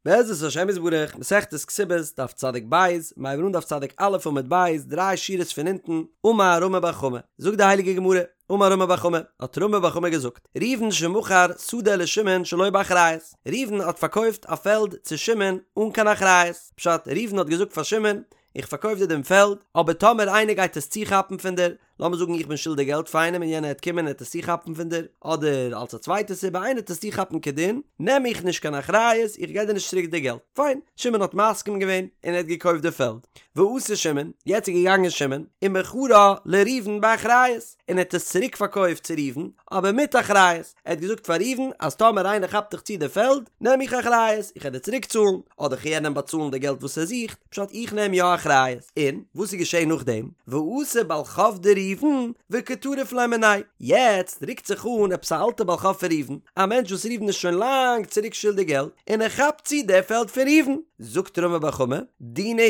בעזרת השם יתברך, מסכת כתובות, דף צדיק ב', מיר הייבן אן דף צדיק א' עמוד ב', דריי שורות פון אונטן, אמר רמי בר חמא, זאגט די הייליגע גמרא, אמר רמי בר חמא, האט רמי בר חמא געזאגט, ראובן שמכר שדה לשמעון שלא באחריות, ראובן האט פארקויפט א פעלד צו שמעון אן קיין אחריות, פשט, ראובן האט געזאגט פאר שמעון, איך פארקויף דיר דעם פעלד, אבער טאמער איינער גייט עס צוכאפן פון דיר, לאמיר זאגן איך בין שולדיג געלט פאר איינעם און יענער העט קומען און העט עס צוכאפן פון דיר, אדער אלס א צווייטע סיבה איינער העט עס צוכאפן כדין, נעם איך נישט קיין אחריות, איך גיב דיר נישט צוריק די געלט. פיין, שמעון האט מסכים געווען און ער האט געקויפט די פעלד. ואתא שמעון, יעצט איז געגאנגען שמעון, ומכרה לראובן באחריות, און ער האט עס צוריק פארקויפט צו ראובן, אבער מיט אחריות, ער האט געזאגט פאר ראובן אז טאמער איינער כאפט דיך צו די פעלד, נעם איך אחריות, איך העט דיר צוריק צאלן, אדער כ'על יענעם באצאלן די געלט וואס ער זוכט, פשט איך נעם יא אחריות. און וואס איז געשען נאכדעם? ואתא בעל חוב דראובן וקטריף ליה מיניה, יעצט רוקט זיך אן עפעס א אלטע בעל חוב פון ראובן, א מענטש וואס ראובן איז שוין לאנג צוריק שולדיג געלט, און ער כאפט צו די פעלד פון ראובן. זאגט רמי בר חמא, דינא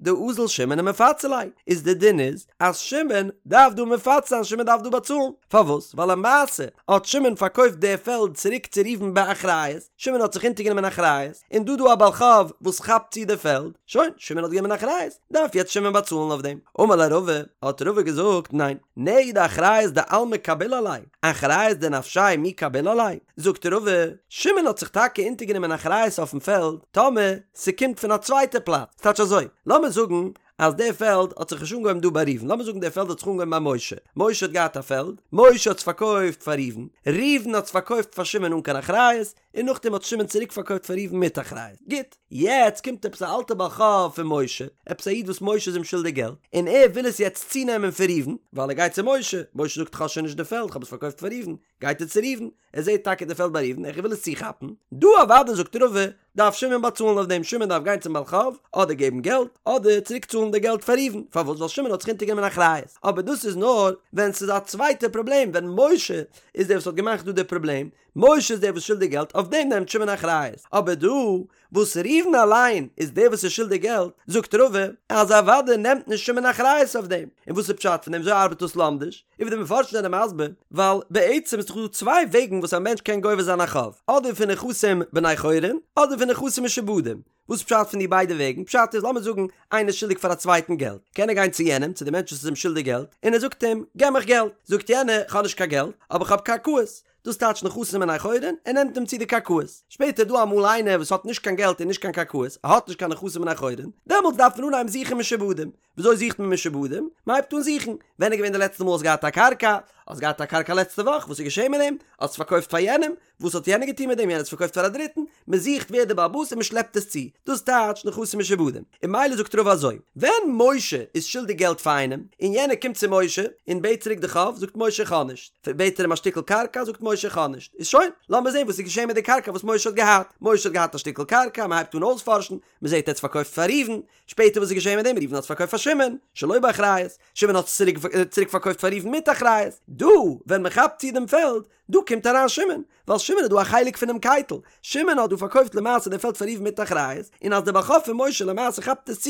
הוא דאזיל שמעון ומפצי ליה, איז די דין איז אז שמעון דארף דא מפצה זיין, שמעון דארף דא באצאלן, פארוואס? ווייל למעשה האט שמעון פארקויפט די פעלד צוריק צו ראובן באחריות, שמעון האט זיך אונטערגענומען אחריות, און דא דא א בעל חוב וואס כאפט צו די פעלד, שוין, שמעון האט גענומען אחריות, דארף יעצט שמעון באצאלן אויף דעם. אמר ליה רבא, האט רבא געזאגט, ניין, נהי דאחריות דעלמא קביל עליה, אחריות דנפשיה מי קביל עליה? זאגט רבא, שמעון האט זיך טאקע אונטערגענומען אחריות אויפן פעלד, טאמער ס'קומט פון א צווייטע פלאץ, ס'טייטש אזוי, לאמיר זאגן אז די פעלד האט זיך נישט אנגעהויבן דא ביי ראובן, לאמיר זאגן די פעלד האט זיך אנגעהויבן ביי משה, משה האט געהאט א פעלד, משה האט עס פארקויפט פאר ראובן, ראובן האט עס פארקויפט פאר שמעון אן קיין אחריות, און נאכדעם האט שמעון צוריק פארקויפט פאר ראובן מיט אחריות. גוט, יעצט קומט עפעס א אלטע בעל חוב פון משה, עפעס א איד וואס משה איז אים שולדיג געלט, און ער וויל עס יעצט צונעמען פון ראובן, ווייל ער גייט צו משה, משה זאגט כ'האב שוין נישט די פעלד, כ'האב עס פארקויפט פאר ראובן, גייט ער צו ראובן, ער זעט טאקע די פעלד ביי ראובן, ער וויל עס צוכאפן, דא אוודאי זאגט רבא, דארף שמעון באצאלן אויף דעם, שמעון דארף גיין צום בעל חוב, אדער געבן געלט, אדער צוריק צאלן די געלט פאר ראובן, פארוואס? ווייל שמעון האט זיך אונטערגענומען אחריות, אבער דאס איז נאר ווען ס'איז א צווייטע פראבלעם, ווען משה איז דער וואס האט געמאכט דא די פראבלעם, משה איז דער וואס שולדיג געלט, אויף דעם נעמט שמעון אחריות, אבער דא וואס ראובן אליין איז דער וואס איז שולדיג געלט, זאגט רבא אז אוודאי נעמט נישט שמעון אחריות אויף דעם, און וואס איז פשט פון דעם וויאזוי ארבעט דאס לומדיש? און ווי די מפרשים זענען מסביר, ווייל בעצם איז דאך דא צוויי וועגן וואס א מענטש קען גובה זיין א חוב, אדער פון נכסים בני חורין, אדער פון נכסים משועבדים, וואס איז פשט פון די ביידע וועגן? פשט איז, לאמיר זאגן איינער איז שולדיג פאר א צווייטן געלט, קען ער גיין צו יענעם, צו די מענטש וואס איז אים שולדיג געלט, און ער זאגט אים, געב מיך געלט, זאגט יענער, כ'האב נישט קיין געלט, אבער כ'האב קרקעות, דאס טייטש נכסים בני חורין, ער נעמט אים צו די קרקעות. שפעטער איז דא אמאל איינער וואס האט נישט קיין געלט און נישט קיין קרקעות, ער האט נישט קיין נכסים בני חורין, דעמאלטס דארף מען אנהייבן זוכן משועבדים. וויאזוי זוכט מען משועבדים? מען הייבט אן זוכן, ווען איז געווען די לעצטע מאל האסט געהאט א קרקע? האסט געהאט א קרקע לעצטע וואך, וואס איז געשען מיט דעם? האסט עס פארקויפט פאר יענעם? וואס האט יענער געטון מיט דעם? יענער האט עס פארקויפט פאר א דריטן? מען זוכט ווער דער בעל הבית און מען שלעפט עס צו. דאס טייטש נכסים משועבדים. און ממילא זאגט רבא אזוי, ווען משה איז שולדיג געלט פאר איינעם, און יענער קומט צו משה און בעט צוריק די חוב, זאגט משה איך האב נישט. בעט ער אים א שטיקל קרקע, זאגט משה איך האב נישט. איז שוין, לאמיר זען וואס איז געשען מיט די קרקע וואס משה האט געהאט. משה האט געהאט א שטיקל קרקע, מען הייבט אן אויספארשן, מען זעט ער האט עס פארקויפט פאר ראובן, שפעטער וואס איז געשען מיט דעם? ראובן האט עס פארקויפט פאר שמעון, שלא באחריות, שמעון האט עס צוריק פארקויפט פאר ראובן מיט אחריות. דא, ווען מען כאפט צו דעם פעלד, דא קומט אריין שמעון, ווייל שמעון איז דא א חלק פונעם קייטל, שמעון האט דא פארקויפט למעשה די פעלד פאר ראובן מיט אחריות, און אז דער בעל חוב פון משה למעשה כאפט עס צו,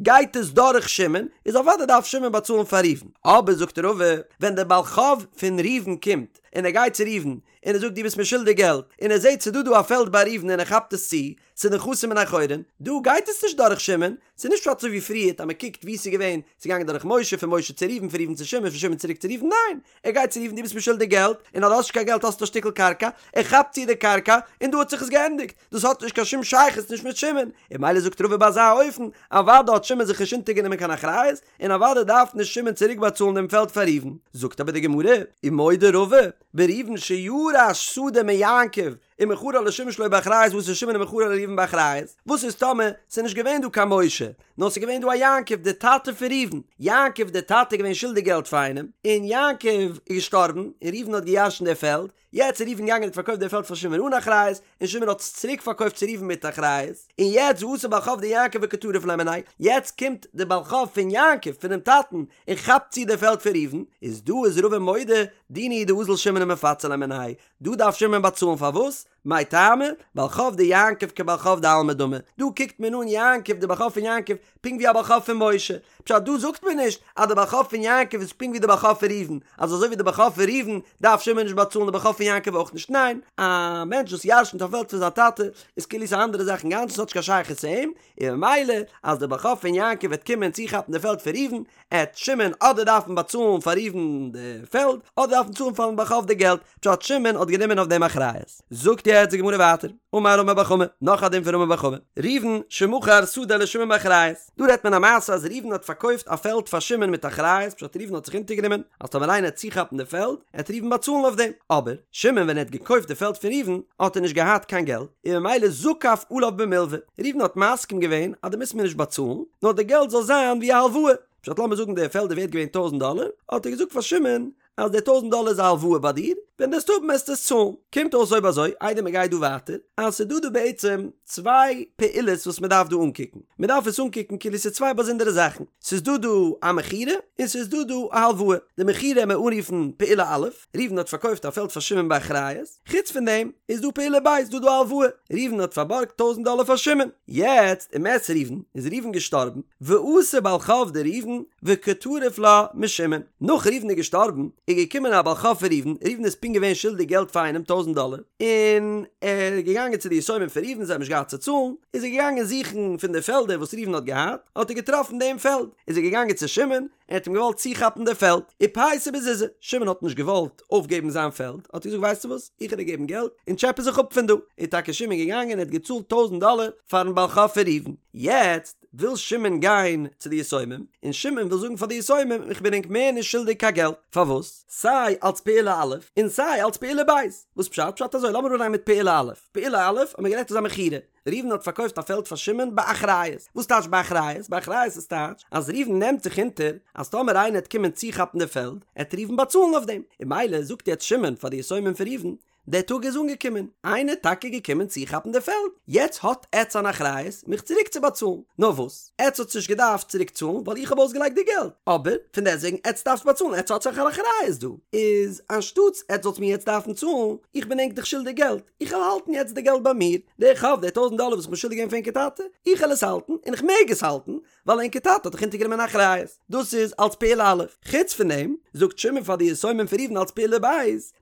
גייט עס דורך שמעון, איז אוודאי דארף שמעון באצאלן פאר ראובן. אבער זאגט רבא, ווען דער בעל חוב פון ראובן קומט, און ער גייט צו ראובן, און ער זאגט דו ביסט מיר שולדיג געלט, און ער זעט ס'איז דא דא א פעלד ביי ראובן און ער כאפט עס צו, ס'איז נכסים בני חורין, דא גייט עס נישט דורך שמעון, ס'איז נישט פשט אזוי ווי פריערט אז מ'קוקט וואו ס'איז געווען, ס'איז געגאנגען דורך משה, פון משה צו ראובן, פון ראובן צו שמעון, פון שמעון צוריק צו ראובן, ניין! ער גייט צו ראובן דו ביסט מיר שולדיג געלט, און אז דו האסט נישט קיין געלט האסטו א שטיקל קרקע, ער כאפט צו די קרקע, און דא האט זיך עס געענדיגט, דאס האט נישט קיין שום שייכות נישט מיט שמעון, און ממילא זאגט רבא ביי אזא אופן, אוודאי האט שמעון זיך נישט אונטערגענומען קיין אחריות, און אוודאי דארף נישט שמעון צוריק באצאלן דעם פעלד פאר ראובן. זאגט אבער די גמרא, ומודה רבא, בראובן שירש שדה מיעקב, ומכרה לשמעון שלא באחריות ואתא שמעון ומכרה לראובן באחריות, וואס איז טאמער ס'איז נישט געווען דא קיין משה, נאר ס'איז געווען דא א יעקב די טאטע פון ראובן, יעקב די טאטע איז געווען שולדיג געלט פאר איינעם, און יעקב איז געשטארבן, און ראובן האט געירשנט די פעלד, יעצט איז ראובן געגאנגען און האט פארקויפט די פעלד פאר שמעון אן אחריות, און שמעון האט עס צוריק פארקויפט צו ראובן מיט אחריות, און יעצט ואתא בעל חוב דיעקב וקטריף ליה מיניה, יעצט קומט די בעל חוב פון יעקב, פונעם טאטן, און כאפט צו די פעלד פון ראובן, איז דא איז רבא מודה, דינא הוא דאזיל שמעון ומפצי ליה מיניה, דא דארף שמעון באצאלן פארוואס? מאי טעמא? בעל חוב דיעקב כבעל חוב דעלמא דמי, דא קוקט מען אן יעקב די בעל חוב פון יעקב פונקט ווי א בעל חוב פון משה, פשט דא זאגט מען נישט אז די בעל חוב פון יעקב איז פונקט ווי די בעל חוב פון ראובן, אז אזוי ווי די בעל חוב פון ראובן דארף שמעון נישט באצאלן די בעל חוב פון יעקב אויך נישט, ניין, א מענטש וואס ירשנט א פעלד פון זיין טאטע איז כאילו ס'איז א אנדערע זאך אינגאנצן ס'האט נישט קיין שייכות צו אים, און ממילא אז די בעל חוב פון יעקב וועט קומען צוכאפן די פעלד פון ראובן, עט שמעון אדער דארפן באצאלן פאר ראובן די פעלד, אדער דארפן צאלן פארן בעל חוב די געלט, פשט שמעון האט גענומען אויף דעם אחריות. זאגט יעצט די גמרא ווייטער, אמר רמי בר חמא, נאך א דין פון רמי בר חמא, ראובן שמכר שדה לשמעון באחריות, דא רעדט מען א מעשה אז ראובן האט פארקויפט א פעלד פאר שמעון מיט אחריות, פשט ראובן האט זיך אונטערגענומען אז טאמער איינער עט צוכאפן די פעלד, עט ראובן באצאלן אויף דעם, אבער שמעון ווען ער האט געקויפט די פעלד פון ראובן האט ער נישט געהאט קיין געלט, און ממילא זקף עליו במלווה, ראובן האט מסכים געווען אז דו מוזט מיר נישט באצאלן, נאר די געלט זאל זיין ווי א הלוואה, פשט לאמיר זאגן די פעלד איז ווערט געווען טויזנט דאלער, האט ער געזאגט פאר שמעון אז די טויזנט דאלער איז א הלוואה ביי דיר, ווען דו וועסט האבן וועסטו עס צאלן. קומט אויס אויב אזוי, איידער מען גייט דא ווייטער, אז ס'איז דא דא בעצם צוויי פעולות וואס מען דארף דא אנקוקן. מען דארף עס אנקוקן כאילו ס'איז צוויי באזונדערע זאכן. ס'איז דא דא א מכירה, און ס'איז דא דא א הלוואה. די מכירה וועט מען אנרופן פעולה א', ראובן האט פארקויפט א פעלד פאר שמעון באחריות, חוץ פון דעם איז דא פעולה ב', איז דא דא א הלוואה, ראובן האט פארבארגט טויזנט דאלער פאר שמעון, יעצט ומת ראובן, איז ראובן געשטארבן, ואתא בעל חוב דראובן וקא טריף לה משמעון, נאך ראובן איז געשטארבן איז געקומען א בעל חוב פון ראובן, ראובן איז פונקט געווען שולדיג געלט פאר איינעם טויזנט דאלער, און ער איז געגאנגען צו די יתומים פון ראובן, זיי האבן נישט געהאט צו צאלן, איז ער געגאנגען זוכן פון די פעלדער וואס ראובן האט געהאט, האט ער געטראפן דעם פעלד, איז ער געגאנגען צו שמעון, ער האט אים געוואלט צוכאפן די פעלד, ופייסיה בזוזי, שמעון האט נישט געוואלט אויפגעבן זיין פעלד, האט ער געזאגט ווייסטו וואס, איך וועל דיר געבן געלט, און טשעפע זיך אפ פון דא, איז טאקע שמעון געגאנגען און ער האט געצאלט טויזנט דאלער פארן בעל חוב פון ראובן, יעצט וויל שמעון גיין צו די יתומים, און שמעון וויל זאגן פאר די יתומים איך בין ענק מער נישט שולדיג קיין געלט, פארוואס? סיי אלץ פעולה א' און סיי אלץ פעולה ב', וואס פשט? פשט אזוי, לאמיר אנהייבן מיט פעולה א', פעולה א' האט מען גערעדט איז א מכירה, ראובן האט פארקויפט א פעלד פאר שמעון באחריות. וואס טייטש באחריות? באחריות איז טייטש אז ראובן נעמט זיך אונטער אז טאמער איינער עט קומען צוכאפן די פעלד, עט ראובן באצאלן אויף דעם. און ממילא זאגט יעצט שמעון פאר די יתומים פון ראובן, דער טאג איז אנגעקומען, איינער איז טאקע געקומען צוכאפן די פעלד, יעצט האט עטץ אן אחריות מיך צוריק צו באצאלן. נאר וואס, עטץ האטס נישט געדארפט צוריק צאלן ווייל איך האב אויסגעלייגט די געלט, אבער פון דעסטוועגן עטץ דארפטס באצאלן, עטץ האטס דאך אן אחריות דא, איז אנשטאטס עטץ זאלטס מיר יעצט דארפן צאלן, איך בין ענק דאך שולדיג געלט, איך וועל האלטן יעצט די געלט ביי מיר, די חוב, די טויזנט דאלער וואס איך בין שולדיג געווען פאר ענקער טאטע, איך וועל עס האלטן, און איך מעג עס האלטן, ווייל ענקער טאטע האט דאך אונטערגענומען אחריות. דאס איז אלס פעולה א'. חוץ פון דעם, זאגט שמעון פאר די יתומים פון ראובן אלס פעולה ב',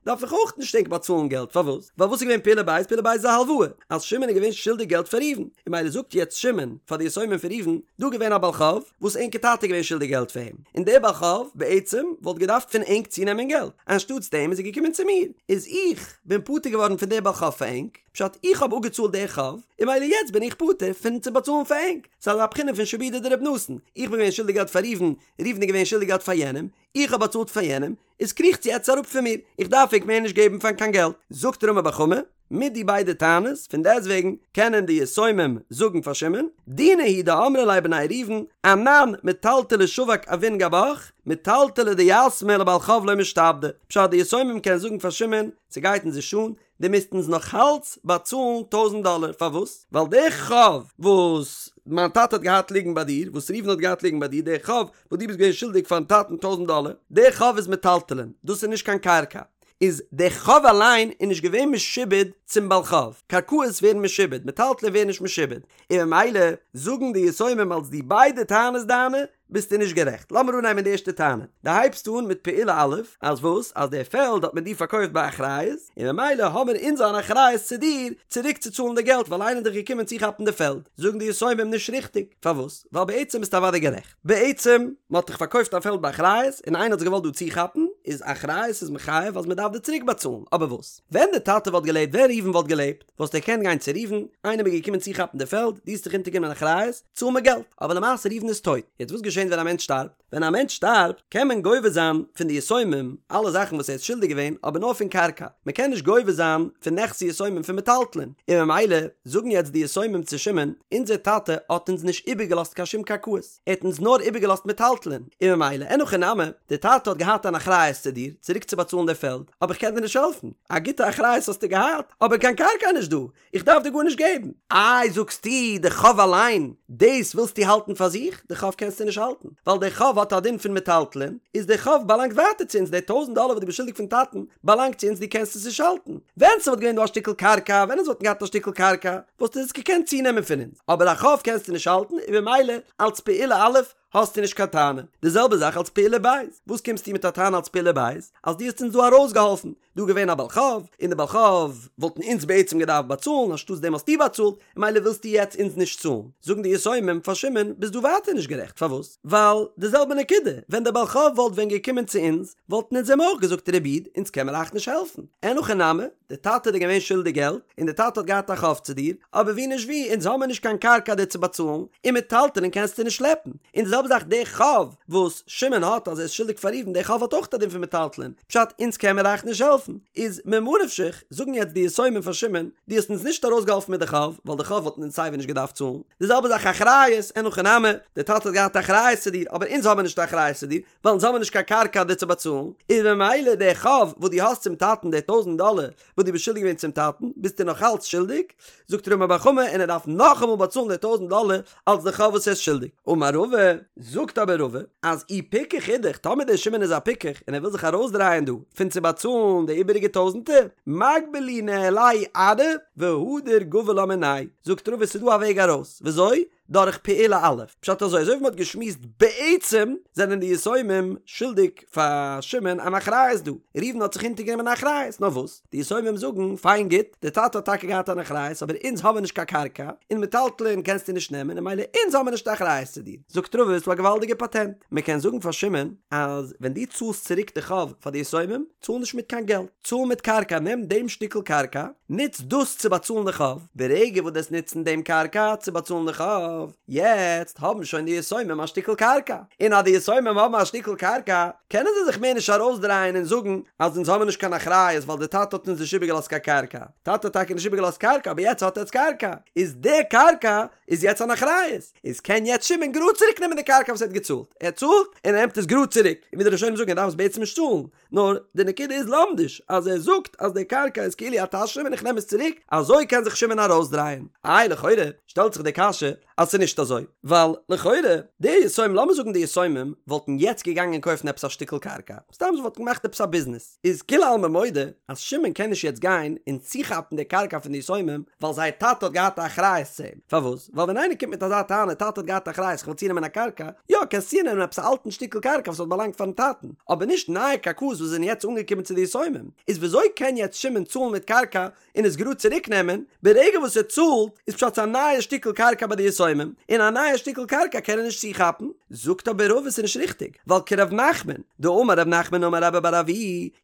דארף איך אויך נישט ענק באצאלן געלט, פארוואס? ווייל וואס איז געווען פעולה ב'? פעולה ב' איז א הלוואה, אז שמעון איז געווען שולדיג געלט פאר ראובן, און ממילא זאגט יעצט שמעון פאר די יתומים פון ראובן, דא געווען א בעל חוב, וואס ענקער טאטע איז געווען שולדיג געלט פאר אים, און דער בעל חוב, בעצם, וואלט געדארפט פון ענק צונעמען געלט, אנשטאטס דעם איז ער געקומען צו מיר, איז איך, בין פטור געווארן פון דער בעל חוב פאר ענק, פשט איך האב אפגעצאלט דער חוב, און ממילא יעצט בין איך פטור פון צו באצאלן פאר ענק, ס'איז אזא בחינה פון שעבודא דרבי נתן, איך בין געווען שולדיג געלט פאר ראובן, ראובן איז געווען שולדיג געלט פאר יענעם, איך האב באצאלט פאר יענעם, איז קריכטס יעצט אראפ פון מיר, איך דארף ענק מער נישט געבן פאר קיין געלט. זאגט רמי בר חמא, מיט די ביידע טענות, פון דעסטוועגן קענען די יתומים זאגן פאר שמעון, דינא הוא דאמרי ליה בני ראובן, אנן מטלטלי שבק אבון גבך, מטלטלי דיתמי לבעל חוב לא משתעבדי, פשט די יתומים קענען זאגן פאר שמעון, ס'גייט אונז נישט אן, דו מוזט אונז נאך אלץ באצאלן טויזנט דאלער, פארוואס? ווייל די חוב וואס מיין טאטע האט געהאט ליגן ביי דיר, וואס ראובן האט געהאט ליגן ביי דיר, די חוב וואס דו ביסט געווען שולדיג פארן טאטן טויזנט דאלער, די חוב איז מטלטלין, דאס איז נישט קיין קרקע, איז די חוב אליין איז נישט געווען משועבד צום בעל חוב, קרקעות ווערן משועבד, מטלטלין ווערן נישט משועבד, און ממילא זאגן די יתומים אלס די ביידע טענות דיינע ביסטו נישט גערעכט. לאמיר אנהייבן די ערשטע טענה. דו הייבסט אן מיט פעולה א', אז וואס? אז די פעלד האט מען דיר פארקויפט באחריות, און ממילא האמיר אונז אן אחריות צו דיר צוריק צו צאלן די געלט ווייל איינער איז דאך געקומען צוכאפן די פעלד. זאגן די יתומים נישט ריכטיג. פארוואס? ווייל בעצם ביסטו אוודאי גערעכט. בעצם, מען האט דיך פארקויפט א פעלד באחריות, און איינער האט זיך געוואלט דא צוכאפן, איז אחריות איז מחייב אז מען דארף דיר צוריק באצאלן. אבער וואס? ווען די טאטע וואלט געלעבט, ווען ראובן וואלט געלעבט, וואלסטו געקענט גיין צו ראובן, איינער איז געקומען צוכאפן די פעלד, דו האסט דיך אונטערגענומען אחריות, צאל מיר געלט. אבער למעשה ראובן איז טויט. יעצט וואס געשענט ווען א מענטש שטארבט? ווען א מענטש שטארבט קען מען גובה זיין פון די יתומים אלע זאכן וואס ער איז שולדיג געווען אבער נאר פון קרקע, מען קען נישט גובה זיין פון נכסי יתומים פון מטלטלין, און ממילא זאגן יעצט די יתומים צו שמעון, אונזער טאטע האט אונז נישט איבערגעלאזט קיין שום קרקעות, ער האט אונז נאר איבערגעלאזט מטלטלין, און ממילא אין הכי נמי, די טאטע האט געהאט אן אחריות. אחריות צו דיר, צוריק צו באצאלן די פעלד, אבער איך קען דיר נישט העלפן, א גוטע אחריות האסטו געהאט, אבער קיין קרקע איז נישט דא, איך דארף דיר גארנישט געבן. איי זאגסטו די חוב אליין, דאס ווילסטו האלטן פאר זיך? די חוב קענסטו נישט האלטן, ווייל די חוב האט א דין פון מטלטלין, איז די חוב באלאנגט ווייטער צו אונז, די טויזענט דאלער וואס דו ביסט שולדיג פון טאטן באלאנגט צו אונז, דו קענסט עס נישט האלטן. ווען ס'וואלט געווען דא א שטיקל קרקע, ווען אונז וואלטן געהאט א שטיקל קרקע, וואלסטו עס געקענט צונעמען פון אונז, אבער א חוב קענסטו נישט האלטן, און במילא אלץ פעולה א' האסטו נישט קיין טענה. די זעלבע זאך אלץ פעולה ב', וואס קומסטו מיט א טענה אלץ פעולה ב', אז דו האסט אונז דא ארויסגעהאלפן, דא געווען א בעל חוב, און די בעל חוב וואלטן אונז בעצם געדארפט באצאלן, אנשטאטס דעם האסטו באצאלט, און ממילא ווילסטו יעצט אונז נישט צאלן. זאגן די יתומים פאר שמעון, ביסט דא ווייטער נישט גערעכט, פארוואס? ווייל די זעלבע נקודה, ווען דער בעל חוב וואלט ווען געקומען צו אונז, וואלטן אונז אים אויך געזאגט ר' איד, אונז קען מיר אייך נישט העלפן. אין הכי נמי, דער טאטע איז דיר געווען שולדיג געלט, און דער טאטע האט געהאט א חוב צו דיר, אבער ווי נישט ווי, אונז האמיר נישט קיין קרקע דיר צו באצאלן, און מטלטלין קענסטו נישט שלעפן. און די זעלבע זאך דער חוב וואס שמעון האט אז ער איז שולדיג פאר ראובן, דער חוב האט אויך א דין פון מטלטלין, פשט אונז קען מיר אייך נישט העלפן. איז ממה נפשך, זאגן יעצט די יתומים פאר שמעון, דו האסט אונז נישט ארויסגעהאלפן מיט די חוב, ווייל די חוב וואלטן אונז סייווי נישט געדארפט צאלן. די זעלבע זאך אחריות, אין הכי נמי, דער טאטע האט געהאט אחריות צו דיר, אבער אונז האמיר נישט אחריות צו דיר, ווייל אונז האמיר נישט קיין קרקע דיר צו באצאלן, איז ממילא דער חוב וואס דו האסט צום טאטן, די טויזענט דאלער וואס דו ביסט שולדיג געווען צום טאטן, ביסטו נאך אלץ שולדיג, זאגט רמי בר חמא, און ער דארף נאכאמאל באצאלן די טויזענט דאלער אלס די חוב וואס ער איז שולדיג. אמר רבא, זאגט אבער רבא, אז אי פיקח אידך, טאמער דער שמעון איז א פיקח און ער וויל זיך ארויסדרייען דא פון צו באצאלן די איבעריגע טויזענטער, מגבי להו ניהליה ארעא והדר גבי לה מינייהו, זאגט רבא ס'איז דא א וועג ארויס, וויאזוי? דורך פעולה א', פשט אזוי, אזוי ווי מ'האט געשמועסט בעצם זענען די יתומים שולדיג פאר שמעון אן אחריות דא, ראובן האט זיך אונטערגענומען אן אחריות, נאר וואס, די יתומים זאגן, פיין גוט, די טאטע האט טאקע געהאט אן אחריות אבער אונז האבן נישט קיין קרקע, און מטלטלין קענסטו נישט נעמען און ממילא אונז האבן נישט אחריות צו דיר. זאגט רבא ס'דא א געוואלדיגע פאטענט, מ'קען זאגן פאר שמעון אז ווען דו צאלסט צוריק די חוב פאר די יתומים, צאל נישט מיט קיין געלט, צאל מיט קרקע, נעם דעם שטיקל קרקע, נוץ דאס צו באצאלן די חוב, ברגע וואס דו וועסט נוצן דעם קרקע צו באצאלן די חוב, יעצט האבן שוין די יתומים א שטיקל קרקע, און אז די יתומים האבן א שטיקל קרקע, קענען זיי זיך מער נישט ארויסדרייען און זאגן אז אונז האבן נישט קיין אחריות ווייל די טאטע האט אונז נישט איבערגעלאזט קיין קרקע, טאטע האט טאקע נישט איבערגעלאזט קרקע אבער יעצט האט עטץ קרקע, איז די קרקע איז יעצט אן אחריות, איז קען יעצט שמעון גראד צוריק נעמען די קרקע וואס ער האט געצאלט, ער צאלט און ער נעמט עס גראד צוריק, און ווי די ראשונים זאגן ער דארף עס בעצם נישט צאלן, נאר די נקודה איז לומדיש אז ער זאגט אז די קרקע איז כאילו א תשלום און איך נעם עס צוריק, אזוי קען זיך שמעון ארויסדרייען. איי לכאורה שטעלט זיך די קשיא אז ס'איז נישט אזוי, ווייל לכאורה די יתומים, לאמיר זאגן די יתומים וואלטן יעצט געגאנגען קויפן עפעס א שטיקל קרקע, סתם זיי וואלטן געמאכט עפעס א ביזנעס, איז כולי עלמא מודה אז שמעון קען נישט יעצט גיין און צוכאפן די קרקע פון די יתומים ווייל זייער טאטע האט געהאט א אחריות צו אים, פארוואס? ווייל ווען איינער קומט מיט אזא טענה טאטע האט געהאט אחריות איך וויל צונעמען א קרקע, יא קענסט צונעמען עפעס א אלטן שטיקל קרקע וואס האט באלאנגט פארן טאטן, אבער נישט נייע קרקעות וואס זענען יעצט אנגעקומען צו די יתומים, איז וויאזוי קען יעצט שמעון צאלן מיט קרקע און עס גראד צוריק נעמען, ברגע וואס ער צאלט איז פשט ס'איז א נייע שטיקל קרקע ביי די יתומים, און א נייע שטיקל קרקע קען ער נישט צוכאפן, זאגט אבער רבא ס'איז נישט ריכטיג, ווייל כרב נחמן, דאמר רב נחמן אמר רבה בר אבוה,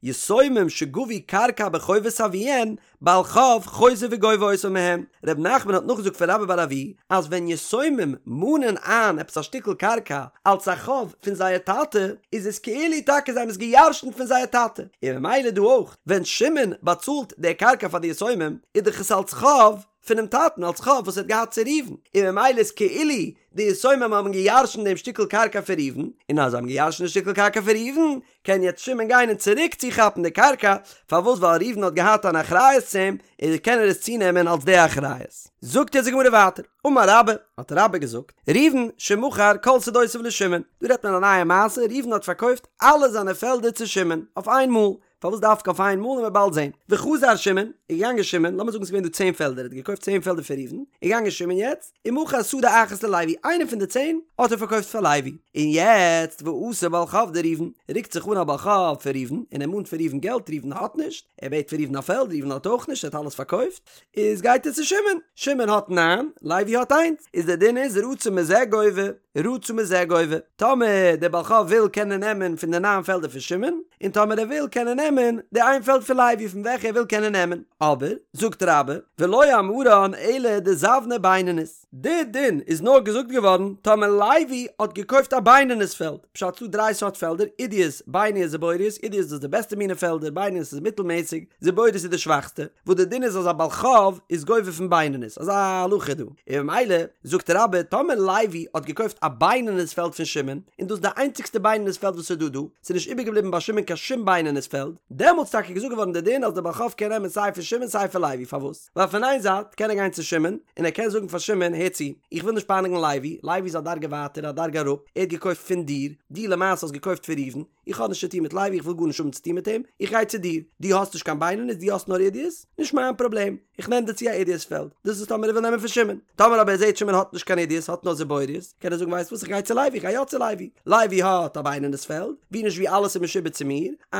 יתומים שגבו קרקע בחובת אביהן, בעל חוב חוזר וגובה אותה מהם, ר' נחמן האט נאכגעזאגט פון רבה בר אבוה אז ווען יתומים מאנען איין עפעס א שטיקל קרקע אלס א חוב פון זייער טאטע איז עס כאילו טאקע זיי האבן עס גע'ירש'נט פון זייער טאטע, און ממילא דא אויך ווען שמעון באצאלט די קרקע פאר די יתומים איז דאך עס אלס חוב פונעם טאטן אלס חוב וואס ער האט געהאט צו ראובן, און ממילא איז כאילו די יתומים האבן גע'ירש'נט דעם שטיקל קרקע פון ראובן, און אז זיי האבן גע'ירש'נט די שטיקל קרקע פון ראובן קען יעצט שמעון גיין און צוריק צוכאפן די קרקע, פארוואס ווייל ראובן האט געהאט אן אחריות צו אים, און קען ער עס צונעמען אלס די אחריות. זאגט יעצט די גמרא ווייטער, אמר רבה, האט רבה געזאגט, ראובן שמכר כל שדותיו לשמעון, דא רעדט מען א נייע מעשה, ראובן האט פארקויפט אלע זיינע פעלדער צו שמעון, אויף איין מאל, פארוואס דווקא אויף איין מאל וועלן מיר באלד זען, וחזר שמעון, איז געגאנגען שמעון, לאמיר זאגן ס'איז געווען דא צען פעלדער, ער האט געקויפט צען פעלדער פון ראובן, איז געגאנגען שמעון יעצט, ומכר שדה אחת ללוי, איינע פון די צען האט ער פארקויפט פאר לוי, און יעצט ואתא בעל חוב דראובן, רוקט זיך אן א בעל חוב פון ראובן, און ער מאנט פון ראובן געלט, ראובן האט נישט, ער בעט פון ראובן א פעלד, ראובן האט אויך נישט, ער האט אלעס פארקויפט, איז גייט ער צו שמעון, שמעון האט ניין, לוי האט איינס, איז דער דין איז רצה מזה גובה, רצה מזה גובה, טאמער דער בעל חוב וויל קען ער נעמען פון די ניין פעלדער פון שמעון, און טאמער ער וויל קען ער נעמען די איין פעלד פון לוי פון וועלכע ער וויל קען ער נעמען, אבער, זאגט רבה, ולא אמרן אלא דזבנה בינונית, די דין איז נאר געזאגט געווארן טאמער לוי האט געקויפט א בינונית פעלד, פשט ס'דא דריי סארט פעלדער, עידית, בינונית, זיבורית, עידית דאס איז די בעסטע מינע פעלדער, בינונית איז מיטלמעסיג, זיבורית איז די שוואכסטע, וואס די דין איז אז א בעל חוב איז גובה פון בינונית, אזא הלכה איז דא, און ממילא זאגט רבה טאמער לוי האט געקויפט א. א בינונית פעלד פון שמעון, און דאס איז די איינציגסטע בינונית פעלד וואס איז דא דא, ס'איז נישט איבערגעבליבן ביי שמעון קיין שום בינונית פעלד, דעמאלטס טאקע געזאגט געווארן די דין אז די בעל חוב קען נעמען סיי פון שמעון סיי פון לוי, פארוואס? ווייל פון איין זייט קען ער גיין צו שמעון, און ער קען זאגן פאר שמעון, הער צו, איך וויל נישט פייניגן לוי, לוי איז א דרגה ווייטער, א דרגה אראפ, ער האט געקויפט פון דיר, דו למעשה האסט געקויפט פון ראובן, איך האב נישט צו טון מיט לוי, איך וויל גארנישט האבן צו טון מיט אים, איך גיי צו דיר, דו האסט נישט קיין בינונית, דו האסט נאר עידית, נישט מיין פראבלעם, איך נעם דיר צו א עידית פעלד, דאס איז טאמער ער וויל נעמען פון שמעון, טאמער אבער ער זעט שמעון האט נישט קיין עידית, האט נאר זיבורית, קען ער זאגן ווייסט וואס איך גיי צו לוי, איך גיי יא צו לוי, לוי האט א בינונית פעלד, ווי נישט ווי אלעס איז משועבד צו מיר, א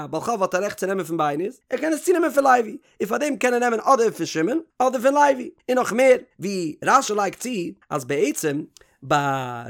בעל חוב האט א רעכט צו נעמען פון בינונית, ער קען עס צונעמען פון לוי, און פאר דעם קען ער נעמען אדער פון שמעון אדער פון לוי, און נאך מער, ווי רש"י לייגט צו אז בעצם ביי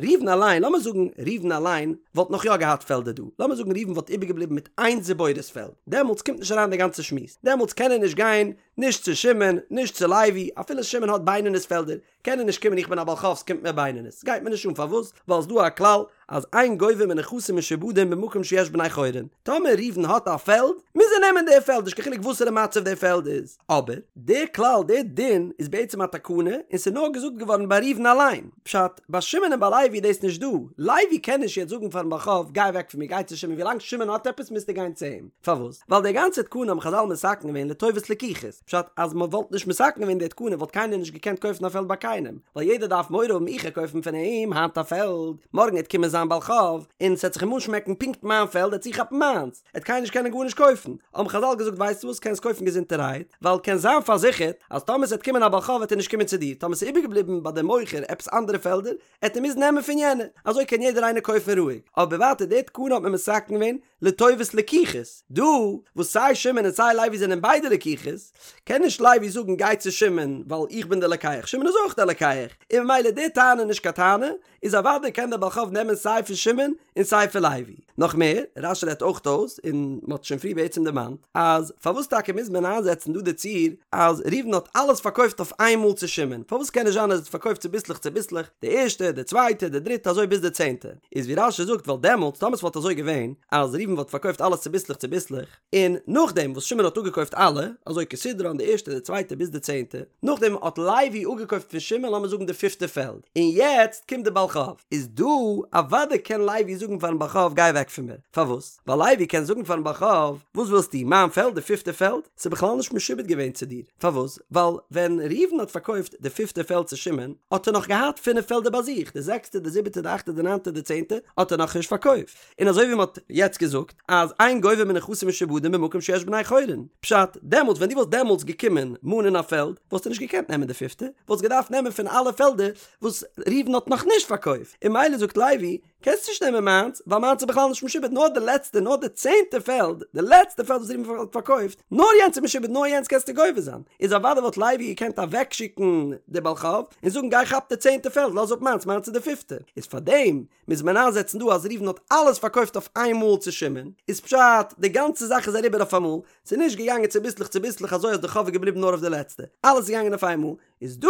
ראובן אליין, לאמיר זאגן ראובן אליין וואלט נאך יא געהאט פעלדער דא, לאמיר זאגן ראובן וואלט איבערגעבליבן מיט איין זיבורית פעלד, דעמאלטס קומט נישט אריין די גאנצע שמועס, דעמאלטס קען ער נישט גיין נישט צו שמעון נישט צו לוי, אפילו שמעון האט בינונית פעלדער, קען ער נישט קומען איך בין א בעל חוב ס'קומט מיר בינונית, ס'גייט מיר נישט אן פארוואס ווייל ס'דא א כלל אז אין גובה מנכסים משועבדים במקום שיש בני חורין, טאמער ראובן האט א פעלד מוז ער נעמען די פעלד נישט קיין חילוק וואסערע מצב די פעלד איז, אבער די כלל די דין איז בעצם א תקנה און ס'איז נאר געזאגט געווארן ביי ראובן אליין, פשט ביי שמעון און ביי לוי איז דאס נישט דא, לוי קען נישט יעצט זאגן פארן בעל חוב גיי אוועק פון מיר גיי צו שמעון ווילאנג שמעון האט עפעס מוזטו גיין צו אים, פארוואס? ווייל די גאנצע תקנה האבן חזל מתקן געווען לטובת לקוחות. פשט אז מען וואלט נישט מתקן געווען די תקנה וואלט קיינער נישט געקענט קויפן א פעלד ביי קיינעם, ווייל יעדער דארף מורא האבן איך גיי קויפן פון אים היינט א פעלד, מארגן עט קומען זיין בעל חוב און ס'עט זיך אים אנשמעקן פונקט מיין פעלד עט צוכאפן מיינס, עט קיינער נישט קענען גארנישט קויפן, האבן חזל געזאגט ווייסטו וואס קענסט קויפן געזונטערהייט, ווייל קענסט זיין פארזיכערט אז טאמער ס'עט קומען א בעל חוב וועט ער נישט קומען צו דיר, טאמער ס'איז איבערגעבליבן ביי דעם מוכר עפעס אנדערע פעלדער עט ער מוזן נעמען פון יענע, אזוי קען יעדער איינער קויפן רואיג, אבער ווייטער די תקנה האט מען מתקן געווען לטובת לקוחות, דא וואס סיי שמעון און סיי לוי זענען ביידע לקוחות, קען נישט לוי זאגן גיי צו שמעון ווייל איך בין דער לוקח, שמעון איז אויך דער לוקח, און ממילא די טענה איז נישט קיין טענה, איז אוודאי קען דער בעל חוב נעמען סיי פון שמעון און סיי פון לוי. נאך מער, רש"י רעדט אויך אויס, און מען האט שוין פריער בעצם דערמאנט, אז פארוואס טאקע מוז מען איינזעצן דא די ציור אז ראובן האט אלעס פארקויפט אויף איינמאל צו שמעון, פארוואס קען נישט זיין אז ער האט פארקויפט צוביסלעך צוביסלעך, די ערשטע, די צווייטע, די דריטע, אזוי ביז די צענטע. איז ווי רש"י זאגט ווייל דעמאלטס טאמער ס'וואלט אזוי געווען אז ראובן וואלט פארקויפט אלעס צוביסלעך צוביסלעך און נאכדעם וואס שמעון האט אפגעקויפט אלע אזוי כסדרן די ערשטע די צווייטע ביז די צענטע נאכדעם האט לוי אפגעקויפט פון שמעון לאמיר זאגן די פיפטע פעלד און יעצט קומט די בעל חוב איז דא אוודאי קען לוי זאגן פארן בעל חוב גיי אוועק פון מיר פארוואס ווייל לוי קען זאגן פארן בעל חוב וואס ווילסטו מיין פעלד די פיפטע פעלד ס'איז בכלל נישט משועבד געווען צו דיר פארוואס? ווייל ווען ראובן האט פארקויפט די פיפטע פעלד צו שמעון, האט ער נאך געהאט פינף פעלדער ביי זיך, די זעקסטע, די זיבעטע, די אכטע, די ניינטע, די צענטע, האט ער נאכנישט פארקויפט. און אזוי ווי מען האט יעצט געזאגט, אז אין גובה מנכסים משועבדים במקום שיש בני חורין. פשט, דעמאלטס ווען דו וואלסט דעמאלטס געקומען מאנען א פעלד, וואלסטו נישט געקענט נעמען די פיפטע, וואלסט געדארפט נעמען פון אלע פעלדער וואס ראובן האט נאכנישט פארקויפט. און ממילא זאגט לוי, קענסט נישט נעמען מיינס, ווייל מיינס איז בכלל נישט משועבד, נאר די לעצטע, נאר די צענטע פעלד, די לעצטע פעלד וואס ראובן האט פארקויפט, נאר יענץ איז משועבד, נאר יענץ קענסטו גובה זיין. איז אוודאי וואלט לוי געקענט אוועקשיקן די בעל חוב, און זאגן גיי כאפ די צענטע פעלד, לאז אפ מיינס, מיינס איז די פיפטע. איז פארדעם מוז מען איינזעצן דא אז ראובן האט אלעס פארקויפט אויף איין מאל צו שמעון, איז פשט, די גאנצע זאך איז אריבער אויף אמאל, ס'איז נישט געגאנגען צוביסלעך צוביסלעך אזוי אז די חוב איז געבליבן נאר אויף די לעצטע, אלעס איז געגאנגען אויף איינמאל, איז דא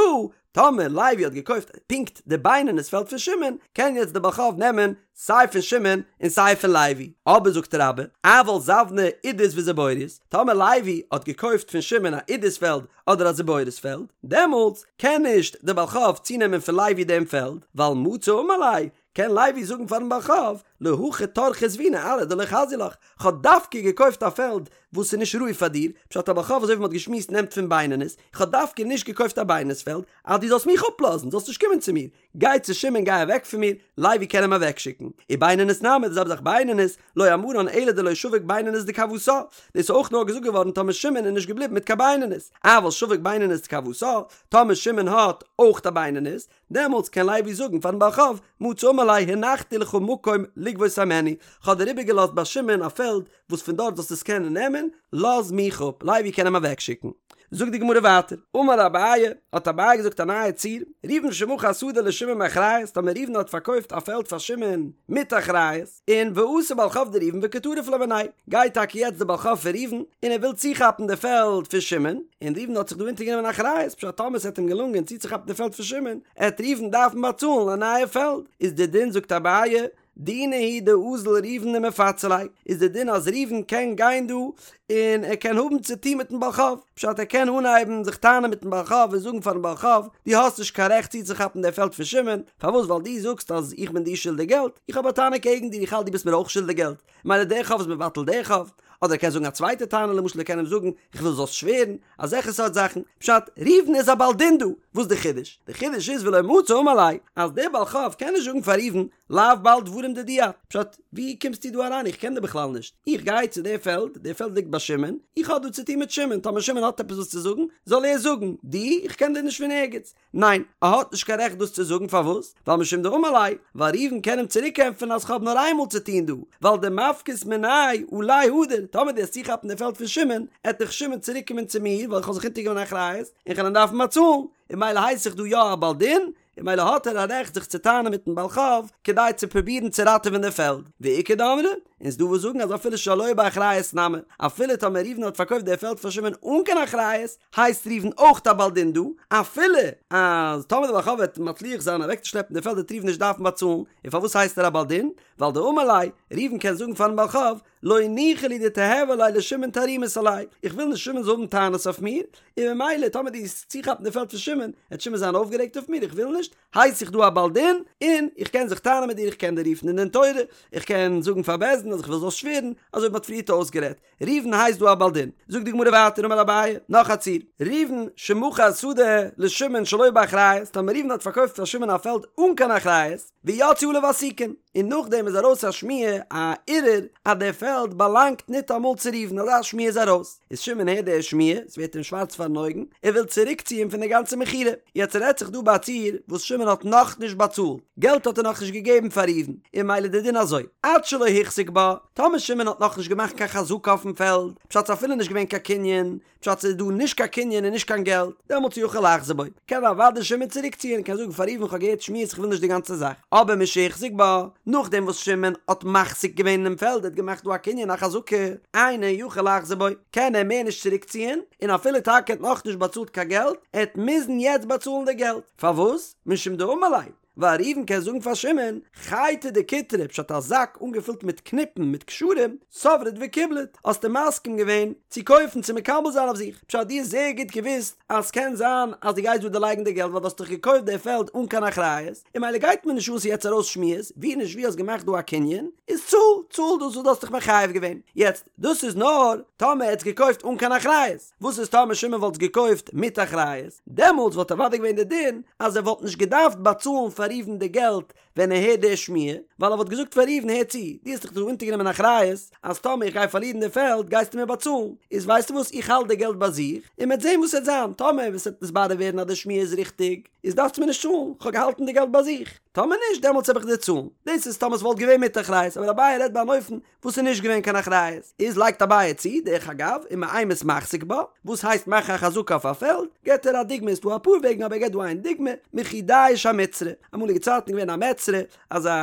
טאמער לוי האט געקויפט פונקט די בינונית פעלד פון שמעון, קען יעצט די בעל חוב נעמען סיי פון שמעון און סיי פון לוי. אבער זאגט רבה, אבל זבנה עידית וזיבורית, טאמער לוי האט געקויפט פון שמעון א עידית פעלד אדער א זיבורית פעלד, דעמאלטס קען נישט די בעל חוב צונעמען פון לוי דעם פעלד, ווייל מצי אמר ליה, קען לוי זאגן פארן בעל חוב, להכי טרחא זבינא ארעא דלא חזיא לך, כ'האב דווקא געקויפט א פעלד וואס איז נישט ראוי פאר דיר, פשט א בעל חוב אזוי ווי מ'האט געשמועסט נעמט פון בינונית, איך האב דווקא נישט געקויפט א בינונית פעלד אז דו זאלסט מיך אפלאזן, זאלסט נישט קומען צו מיר, גיי צו שמעון גיי אוועק פון מיר, לוי קען אים אוועקשיקן. ובינונית נמי, די זעלבע זאך בינונית, לא אמרן אלא דלא שביק בינונית דכוותה, דאס איז אויך נאר געזאגט געווארן טאמער שמעון איז נישט געבליבן מיט קיין בינונית, אבל שביק בינונית דכוותה, טאמער שמעון האט אויך א בינונית, דעמאלטס קען לוי זאגן פארן בעל חוב, מצי אמר ליה הנחתי לך מקום לגבות הימנו, כ'האב דיר איבערגעלאזט ביי שמעון א פעלד וואס פון דארט זאלסטו עס קענען נעמען, לאז מיך אפ, לוי קען אים אוועקשיקן. זאגט די גמרא ווייטער, אמר אביי, האט אביי געזאגט א נייע ציור, ראובן שמכר שדה לשמעון באחריות, טאמער ראובן האט פארקויפט א פעלד פאר שמעון מיט אחריות, און ואתא בעל חוב דראובן וקא טריף ליה מיניה, גייט טאקע יעצט דער בעל חוב פון ראובן און ער וויל צוכאפן די פעלד פון שמעון, און ראובן האט זיך דא אונטערגענומען אחריות, פשט טאמער ס'עט אים געלונגען צוצוכאפן די פעלד פון שמעון, עט ראובן דארפן באצאלן א נייע פעלד, איז די דין זאגט אביי, דינא הוא דאזיל ראובן ומפצי ליה, איז די דין אז ראובן קען גיין דא און און ער קען האבן צו טון מיטן בעל חוב, פשט ער קען אנהייבן זיך טענה'ן מיטן בעל חוב און זאגן פארן בעל חוב, דו האסט נישט קיין רעכט צוצוכאפן די פעלד פון שמעון, פארוואס ווייל דו זאגסט אז איך בין דיר שולדיג געלט, איך האב א טענה קעגן דיר איך האלט דו ביסט מיר אויך שולדיג געלט, מילא דער חוב איז מבטל דער חוב, אדער ער קען זאגן א צווייטע טענה למשל ער קען אים זאגן איך וויל זאלסט שווערן, אזעלכע סארט זאכן, פשט, ראובן איז א בעל דין דא, וואס די חידוש? די חידוש איז ולא מצי אמר ליה, אז דער בעל חוב קען נישט זאגן פאר ראובן לאו בעל דברים דידי את, פשט, ווי קומסטו דא אריין איך קען דיר בכלל נישט, איך גיי צו דער פעלד, דער פעלד ליגט ביי שמעון, איך האב דא צו טון מיט שמעון, טאמער שמעון האט עפעס וואס צו זאגן, זאל ער זאגן, דו, איך קען דיר נישט פון ערגעץ. ניין, ער האט נישט קיין רעכט דאס צו זאגן, פארוואס? ווייל משום דאמר ליה, ווייל ראובן קען אים צוריקענטפערן אז כ'האב נאר איינמאל צו טון דא, ווייל דמפקת מיניה עלי הדר, טאמער דו וועסט צוכאפן די פעלד פון שמעון, עט דאך שמעון צוריקקומען צו מיר, ווייל איך האב זיך אונטערגענומען אחריות, און כ'על אים דארפן באצאלן, און מילא הייס איך דא יא א בעל דין, און מילא האט ער א רעכט זיך צו טענה'ן מיטן בעל חוב כדי צו פרובירן צו ראטעווען די פעלד, ואיכא דאמרי, און ס'דא וואס זאגן אז אפילו שלא באחריות נמי, אפילו טאמער ראובן האט פארקויפט די פעלד פאר שמעון אן קיין אחריות, הייסט ראובן אויך א בעל דין דא, אפילו אז טאמער די בעל חוב וועט מצליח זיין אוועקצושלעפן די פעלד וועט ראובן נישט דארפן באצאלן, און פארוואס הייסט ער א בעל דין? ווייל דאמר ליה, ראובן קען זאגן פארן בעל חוב, לא ניחא לי דתיהוי ליה לשמעון תרעומת עלי, איך וויל נישט שמעון זאל האבן טענות אויף מיר, און ממילא טאמער דו וועסט צוכאפן די פעלד פון שמעון, וועט שמעון זיין אויפגערעגט אויף מיר, איך וויל נישט, הייס איך דא א בעל דין, און איך קען זיך טענה'ן מיט דיר, איך קען דיר רופן אין דין תורה, איך קען זאגן פאר בית דין אז איך וויל זאלסט שווערן, אזוי ווי מ'האט פריערט אויסגערעדט. ראובן הייסט דא א בעל דין. זאגט די גמרא ווייטער אמר אביי, נאך א ציור, ראובן שמכר שדה לשמעון שלא באחריות, טאמער ראובן האט פארקויפט פאר שמעון א פעלד אן קיין אחריות, ויצאו עליו עסיקין, און נאכדעם איז ארויס א שמועה, א ערעור, אז דער פעלד באלאנגט ניטאמאל צו ראובן, אזא שמועה איז ארויס, איז שמעון הערט די שמועה, עס ווערט אים שווארץ פארן אויגן, ער וויל צוריקציען פון די גאנצע מכירה, יעצט רעדט זיך דא ביי א ציור וואס שמעון האט נאכנישט באצאלט, געלט האט ער נאכנישט געגעבן פאר ראובן, און ממילא די דין אזוי, עד שלא החזיק בה, טאמער שמעון האט נאכנישט געמאכט קיין חזקה אויפן פעלד, פשט ס'איז אפילו נישט געווען קיין קנין, פשט ס'איז דא נישט קיין קנין און נישט קיין געלט, דעמאלטס יכול לחזור בו, קען אוודאי שמעון צוריקציען, קען זאגן פאר ראובן כ'האב געהערט שמועות כ'וויל נישט די גאנצע זאך, אבער משהחזיק בה, נאכדעם וואס שמעון האט מחזיק געווען אינעם פעלד, ער האט געמאכט דא א קנין א חזקה, אינו יכול לחזור בו, קען ער מער נישט צוריקציען, און אפילו טאקע ער האט נאכנישט באצאלט קיין געלט, ער העט מוזן יעצט באצאלן די געלט, פארוואס? משום דאמר ליה, ווייל ראובן קען זאגן פאר שמעון, חייטא דקיטרי, פשט א זאק אנגעפילט מיט קניפן מיט קשרים, סברת וקיבלת, האסטו מסכים געווען צו קויפן צו מקבל זיין אויף זיך, פשט דו האסט זייער גוט געוואוסט אז ס'קען זיין אז דו גייסט דא דערלייגן די געלט ווייל דו האסט דאך געקויפט די פעלד אן קיין אחריות, און מילא גייט מיר נישט אן ס'איז יעצט ארויס שמועות, ווי נישט ווי האסט געמאכט דא א קנין, איז צאל, צאל דאס וואס דו האסט דיך מחייב געווען. יעצט, דאס איז נאר טאמער ער האט עס געקויפט אן קיין אחריות. וואס איז טאמער שמעון וואלט עס געקויפט מיט אחריות? דעמאלטס וואלט אוודאי געווען די דין אז ער וואלט נישט געדארפט באצאלן פאר ראובן די געלט ווען ער הערט די שמועה, ווייל ער וואלט געזאגט פאר ראובן הער צו, דו האסט דיך דא אונטערגענומען אחריות אז טאמער איך גיי פארלירן די פעלד גייסטו מיר באצאלן, איז ווייסטו וואס איך האלט די געלט ביי זיך און מ'עט זען וואס עט זיין, טאמער עס וועט נתברר ווערן אז די שמועה איז ריכטיג איז דארפסטו מיר נישט צאלן, כ'האב געהאלטן די געלט ביי זיך, טאמער נישט דעמאלטס העב איך דיר צאלן. דאס איז טאמער עס וואלט געווען מיט אחריות, אבער אביי רעדט ביי אן אופן וואס איז נישט געווען קיין אחריות, איז לייגט אביי צו, דרך אגב, ומאימת מחזיק בה, וואס הייסט מאכן א חזקה אויף א פעלד, געבט ער א דוגמא, איז דא אפאר וועגן אבער ער געבט דא איין דוגמא, מכי דיש המצרא, אמאליגע צייטן איז געווען א מצרא, אזא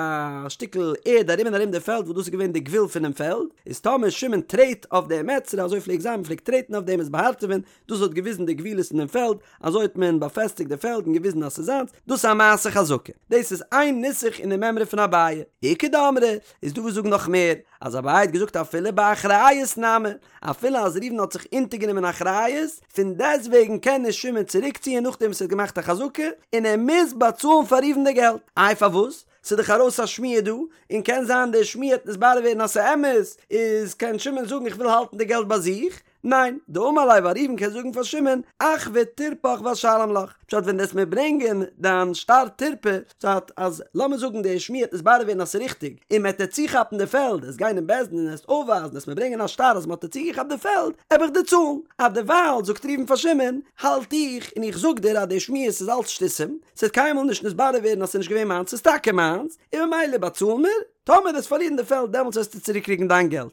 שטיקל ערד ארום און ארום די פעלד וואס דאס איז געווען די גבול פונעם פעלד, איז טאמער שמעון טרעט אויף די מצרא, אזוי פלעגט זיין, מען פלעגט טרעטן אויף דעם עס באהארטעווען, דאס האט געוויזן די גבולות אין דעם פעלד, אזוי האט מען באפעסטיגט די פעלד און געוויזן אז ס'איז זיינס, דאס איז א מעשה חזקה. דאס איז איין נוסח אין די מימרא פון אביי. איכא דאמרי, איז דא וואס זאגן נאך מער, אז אביי האט געזאגט אפילו באחריות נמי, אפילו אז ראובן האט זיך אונטערגענומען אחריות, פון דעסטוועגן קען נישט שמעון צוריקציען נאכדעם וואס ער האט געמאכט א חזקה, און ער מוז באצאלן פאר ראובן די געלט. איי פארוואס? ס'איז דאך ארויס א שמועה דא, און קען זיין די שמועה וועט נתברר ווערן אז ס'איז אמת, איז קען שמעון זאגן איך וויל האלטן די געלט ביי זיך, ניין, דאמר ליה ווייל ראובן קען זאגן פאר שמעון, אחוי טורפך ואשלם לך, פשט ווען דו וועסט מיר ברענגען דיין שטר טורפא, פשט אז לאמיר זאגן די שמועה וועט נתברר ווערן אז ס'איז ריכטיג, און מ'עט דיר צוכאפן די פעלד, עסט גיין אין בית דין און עסט אויפווייזן, עסט מיר ברענגען א שטר אז מ'האט דיר צוגעכאפט די פעלד, עב איך דיר צאלן. אז דערווייל זאגט ראובן פאר שמעון, האלט איך און איך זאג דיר אז די שמועות איז אלץ שטותים, ס'וועט קיינמאל נישט נתברר ווערן אז ס'איז נישט געווען מיינס, ס'איז טאקע מיינס, און ממילא באצאל מיר, טאמער וועסט פארלירן די פעלד דעמאלטס וועסטו צוריקקריגן דיין געלט.